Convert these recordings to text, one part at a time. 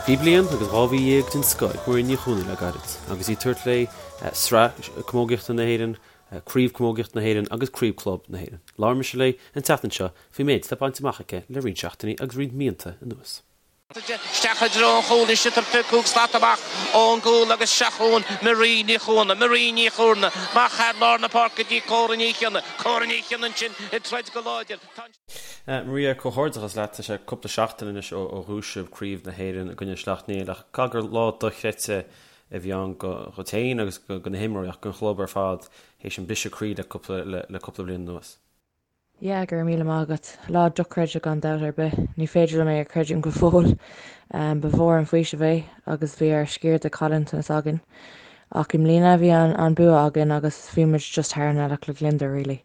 Bhí bliain agus 12 mhí den scoth ag Maria Ní Chuana le gairid agus í ag tabhairt léi Sraith Camógaíochta na hÉireann, Craobh Camógaíochta na hÉireann agus Craobh Club na hÉireann. Labhair mise léi an tseachtain seo faoin méid atá bainte amach aici le roinnt seachtainí agus roinnt míonna anuas. Isteach i dtreo an chúil anois ag tabhairt 5 slat amach ón gcúl agus seo chugainn Marie Ní Chuana. Marie Ní Chuana amach thar lár na páirce go dtí Córa Ní Chionnaith. Córa Ní Chionnaith ansin ag troid go láidir. Tá an. Maria, comhghairdeachas leat. Tá sé cúpla seachtain anois ó bhuaigh sibh Craobh na hÉireann i gcoinne Sleacht Néill ach caithfidh gur lá dochreidte a bhí ann dhuit féin agus do na himreoirí ach don chlub ar fad théis an briseadh croí le cúpla bliain anuas. Yeah, go raibh míle maith agat. Lá dochreidte gan dabht ar bith. Ní féidir liom é a chreidiúint go fóill. Ba mhór an faoiseamh é agus bhí ár sciar de chaillteanas againn. Ach i mbliana bhí an bua againn agus bhí muid just thar an ngealach le gliondar really.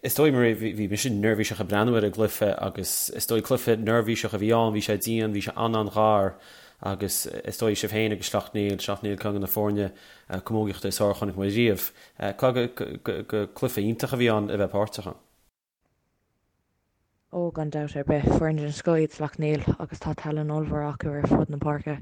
Is dóigh, Maria, bhí mise neirbhíseach ag breathnú ar an gcluiche agus is dóigh cluiche neirbhíseach a bhí ann, bhí sé dian, bhí sé an-an-ghar agus is dóigh sibh féin agus Sleacht Néill, Sleacht Néill ceann de na foirne camógaíochta is fearr a chonaic mé riamh. Caithfidh gur cluiche iontach a bhí ann a bheith páirteach ann. Ó, gan dabht ar bith, foireann den scoth iad Sleacht Néill agus tá tallann ollmhór acu ar fud na páirce.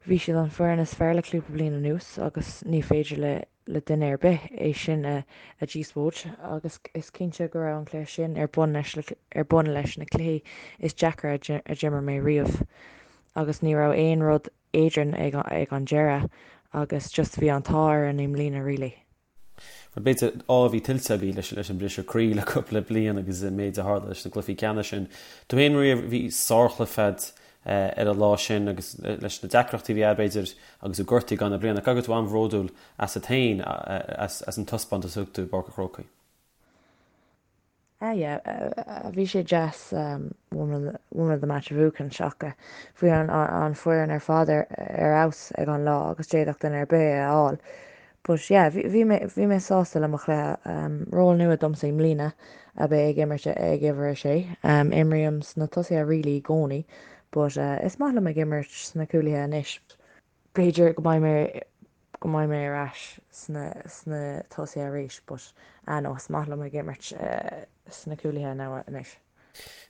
Bhí siad an foireann is fearr le cúpla bliain anuas agus ní féidir le le duine ar bith é sin a a dhíospóid agus is cinnte go raibh an cluiche sin ar bun leis ar bun leis na cluichí is deacra a d'imir mé riamh agus ní raibh aon rud eadrainn ag ag an deireadh agus just bhí an t-ádh orainn i mbliana really. Bhuel b'fhéidir ádh a bhí tuillte agaibh leis leis an briseadh croí le cúpla bliain agus an méid a tharla leis na cluichí ceannais sin. Tú féin Maria, bhí sárchluiche agat ar an lá sin agus leis na deacrachtaí a bhí agat b'fhéidir agus tú gortaithe i gcaitheamh na bliana. Caithfidh go raibh tú an-bhródúil asat féin as an taispeántas a thug tú i bPáirc an Chrócaigh. Ah yeah, bhí sé deas woman of the match a bhuachan ach bhí an foireann ar fad ar fheabhas ag an lá agus d'fhéadfadh duine ar bith é a fháil. But yeah, bhí mé bhí mé sásta le mo chluiche. Ról nua domsa i mbliana ab ea ag imirt ag uimhir a sé. Imrím sna tosaithe really i gcónaí but is maith liom ag imirt sna cúlaithe anois. B'fhéidir go mbeidh mé go mbeidh mé ar ais sna sna tosaithe arís but ah no is maith liom ag imirt sna cúlaithe now anois.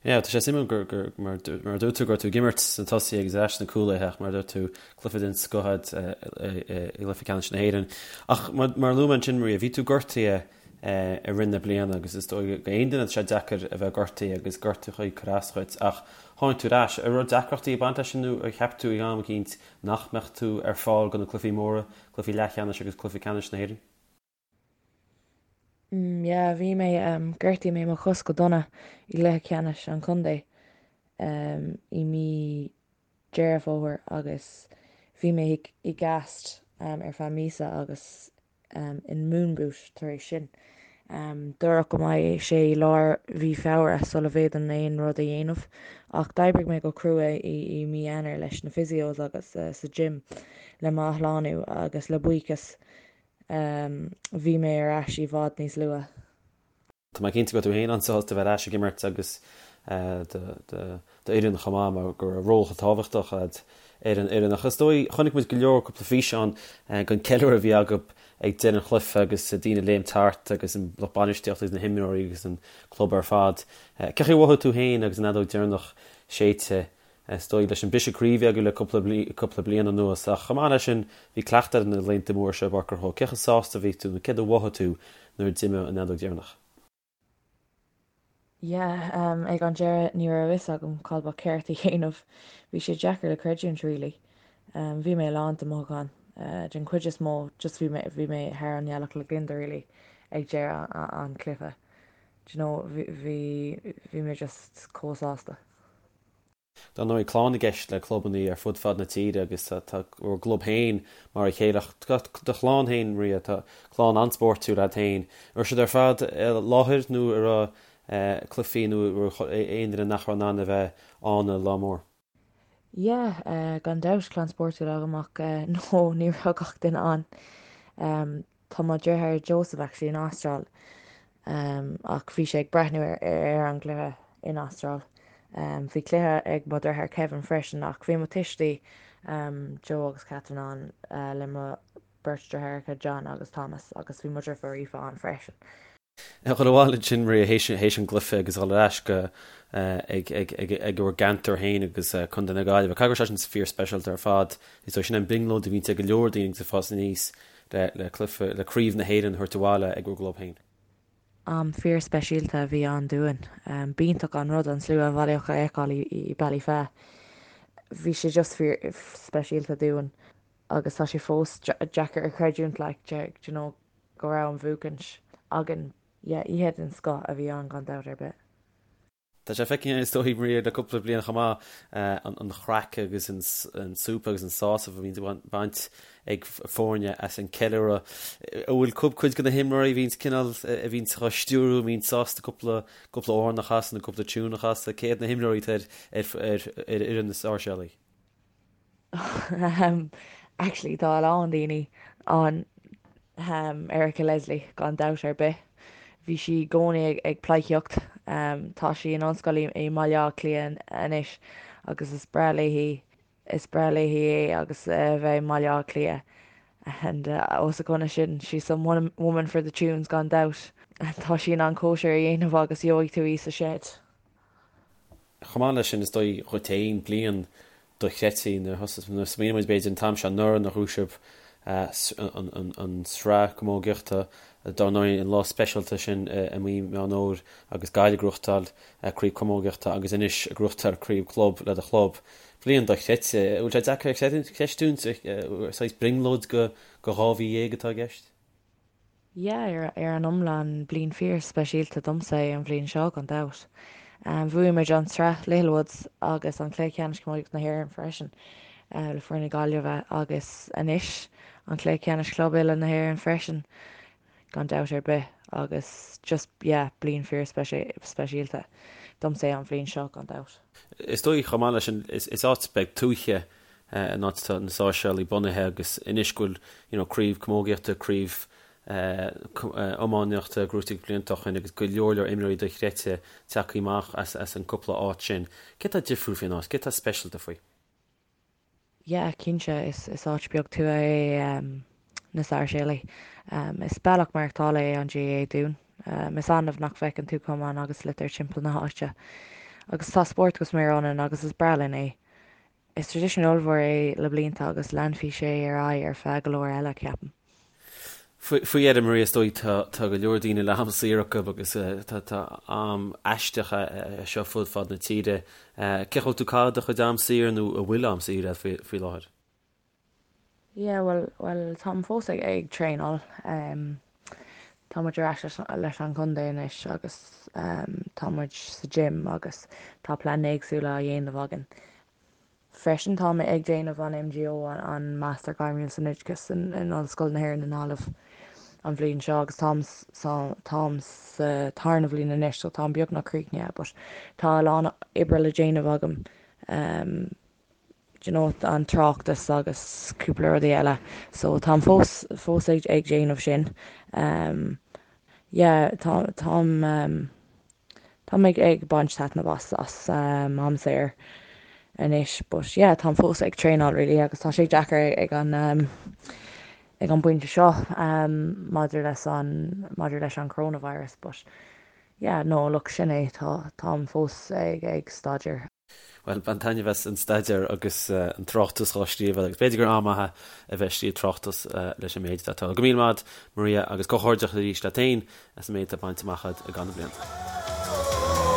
Yeah, tá sé suimiúil gur gur mar mar a dúirt tú go raibh tú ag imirt sna tosaithe agus ar ais sna cúlaithe ach mar a dúirt tú cluiche den scoth agat i gcluiche ceannais na hÉireann. Ach mar mar a luaigh mé ansin Maria, bhí tú gortaithe i rith na bliana agus is dóigh go aon duine tá sé deacair a bheith gortaithe agus gortú ag cur as dhuit ach tháinig tú ar ais. An raibh deacrachtaí ag baint leis sin nó ar cheap tú ag am eicínt nach mbeadh tú ar fáil do na cluichí móra, cluichí leathcheannais agus cluiche ceannais na hÉireann? Mm yeah, bhí mé, ghortaigh mé mo chos go dona i gcluiche ceannais an chontae i mí Deireadh Fómhair agus bhí mé i gcast ar feadh míosa agus in moon boot tar éis sin. Dúradh go mbeidh sé i lár mhí Feabhra sula bhféadfainn aon rud a dhéanamh, ach d'oibrigh mé go crua i mí Eanáir leis na physios agus sa gym le m'athshlánú agus le buíochas bhí mé ar ais i bhfad níos luaithe. Tá mé cinnte go raibh tú féin an-sásta a bheith ar ais ag imirt agus d'fhoireann chomh maith mar go raibh ról chomh tábhachtach agat ar an fhoireann. Ach is dóigh, chonaic muid go leor cúpla físeán den ceiliúradh a bhí agaibh ag deireadh an chluiche agus daoine ag léimt thart agus an lucht bainistíochta agus na himreoirí agus an club ar fad. Cén chaoi a mhothaigh tú féin agus an fheadóg deireanach séidte Is dóigh, leis an briseadh croí a bhí agaibh le cúpla bliain anuas, ach chomh maith leis sin, bhí cleachtadh ar na laethanta móra seo i bPáirc an Chrócaigh. Cé chomh sásta a bhí tú nó céard a mhothaigh tú nuair a d'imigh an fheadóg dheireanach? Yeah, ag an deireadh ní raibh a fhios agam cad ba cheart a dhéanamh. Bhí sé deacair le creidiúint really. Bhí mé lán de mhothúcháin. Den chuid is mó, just bhí mé, bhí mé thar an ngealach le gliondar really ag deireadh an chluiche. Do you know, bhí, bhí mé just chomh sásta. Dar ndóigh, clann i gceist le clubanna ar fud fad na tíre agus tá bhur gclub féin mar a chéile. Ach tá do chlann féin, Maria, tá clann an-spórtúil agat féin. An raibh siad ar fad i láthair nó an raibh cluichí nó an raibh aon duine nach raibh in ann a bheith ann an lá mór? Yeah, gan dabht, clann spórtúil agam ach no, ní raibh gach duine ann. Tá mo dheartháir Joseph actually in Astráil ach bhí sé ag breathnú ar an gcluiche in Astráil. Bhí cluiche ag mo dheartháir Kevin freisin ach bhí mo tuistí Joe agus Catherine ann le mo beirt deartháireacha John agus Thomas agus bhí mo dheirfiúr Aoife ann freisin. A dhul abhaile ansin, Maria, théis an gcluiche agus a dhul ar ais go ag ag bhur gceantar féin agus Contae na Gaillimhe. Caithfidh go raibh sé sin fíor-speisialta ar fad. Is dóigh sin an brionglóid a bhíonns ag go leor daoine agus ag fás aníos le le cluiche, le craobh na hÉireann a thabhairt abhaile ag bhur gclub féin. Am fíor-speisialta a bhí ann dúinn. B'iontach an rud an slua a bhailíodh a fheiceáil i Ballyfea. Bhí sé just fíor-speisialta dúinn agus tá sé fós deacair a chreidiúint like, do you know, go raibh an bhuachaint againn. Yeah, oíche den scoth a bhí ann gan dabht ar bith. Tá sé feicthe is dóigh, Maria, le cúpla bliain chomh maith, an chraic agus an súp agus an sásamh a bhíonns ag baint ag foirne as an ceiliúradh. An bhfuil cuid de na himreoirí a bhíonns cineál, a bhíonns á stiúrú, a bhíonns sásta cúpla cúpla amhrán a chasadh nó cúpla tiún a chasadh? Cé hiad na himreoirí atá ar ar fhoireann na Sáirséalaigh? Actually tá a lán daoine ann Erica Leslie gan dabht ar bith. Bhí sí i gcónaí ag pleidhcíocht. Tá sí in ollscoil i mBaile Átha Cliath anois agus is breá léi is breá léi é agus a bheith i mBaile Átha Cliath. And os a choinne sin she's some woman for the tunes gan dabht. Tá sí in ann cóisir a dhéanamh agus gheobhaidh tú í sa shed. Chomh maith leis sin, is dóigh dhuit féin, bliain dochreidte nuair a thosaigh, nuair a smaoiníonn muid b'fhéidir an t-am seo anuraidh nuair a ghnóthaigh sibh an tsraith camógaíochta, dár ndóigh an lá speisialta sin i mí Meán Fhómhair agus Gaillimh ag gnóthachtáil craobh camógaíochta agus anois ag gnóthachtáil craobh club le do chlub. Bliain dochreidte. An bhfuil sé deacair a chreistiúint, saghas brionglóid go 12 mhí atá i gceist? Yeah, ar an iomlán, bliain fíor-speisialta domsa é an bhliain seo, gan dabht. Bhuaigh muid an tSraith Littlewoods agus an Cluiche Ceannais Camógaíochta na hÉireann freisin le foireann na Gaillimhe agus anois an Cluiche Ceannais Club Uile na hÉireann freisin, gan dabht ar bith. Agus just, yeah, bliain fíor-speisialta domsa é an bhliain seo, gan dabht. Is dóigh chomh maith leis sin, is áit beag tuaithe an áit atá na Sáirséalaigh bunaithe agus anois go bhfuil you know craobh camógaíochta, craobh iománaíochta gnóthaithe blianta ó shin agus go leor leor imreoirí dochreidte tagtha amach as as an cúpla áit sin. Céard atá difriúil faoin áit? Céard atá speisialta faoi? Yeah, cinnte, is is áit beag tuaithe é na Sáirséalaigh. Is bealach maireachtála é an GAA dúinn. Is annamh nach bhfeiceann tú camán agus sliotar timpeall na háite. Agus tá spórt go smior ionainn agus is breá linn é. Is traidisiún ollmhór é le blianta agus leanfaidh sé ar aghaidh ar feadh go leor eile, ceapaim. Faoi dheireadh, Maria, is dóigh tá go leor daoine le ham saor acu agus tá am aisteach é seo fud fad na tíre. Cén chaoi a bhfuil tú ag caitheamh do chuid am saor nó an bhfuil am saor agat faoi láthair? Yeah, bhuel, bhuel, táim fós ag, ag traenáil. Tá muid ar ais leis, leis an chontae anois agus tá muid sa gym agus tá pleananna éagsúla á dhéanamh againn. Freisin tá mé ag déanamh an MGO, an Master Gairmiúil san Oideachas in, in Ollscoil na hÉireann i nGaillimh an bhliain seo agus táim sa, táim sa tarna bhliain anois so táim beagnach críochnaithe but tá a lán oibre le déanamh agam. you know an tráchtas agus cúpla rudaí eile so táim fós fós ag ag déanamh sin um yeah tá táim um táim ag ag baint taitneamh as as um am saor anois but yeah táim fós ag traenáil really agus tá sé deacair ag an um ag an bpointe seo um maidir leis an maidir leis an coronavirus but yeah no look sin é tá táim fós ag ag staidéar. Bhuel, bain taitneamh as an staidéar agus an tráchtas dhá scríobh agus b'fhéidir gur am maith é a bheith ag scríobh tráchtas leis an méid atá tarlaithe. Go míle maith agat, Maria, agus comhghairdeachas arís leat féin as an méid atá bainte amach agat i gcaitheamh na bliana.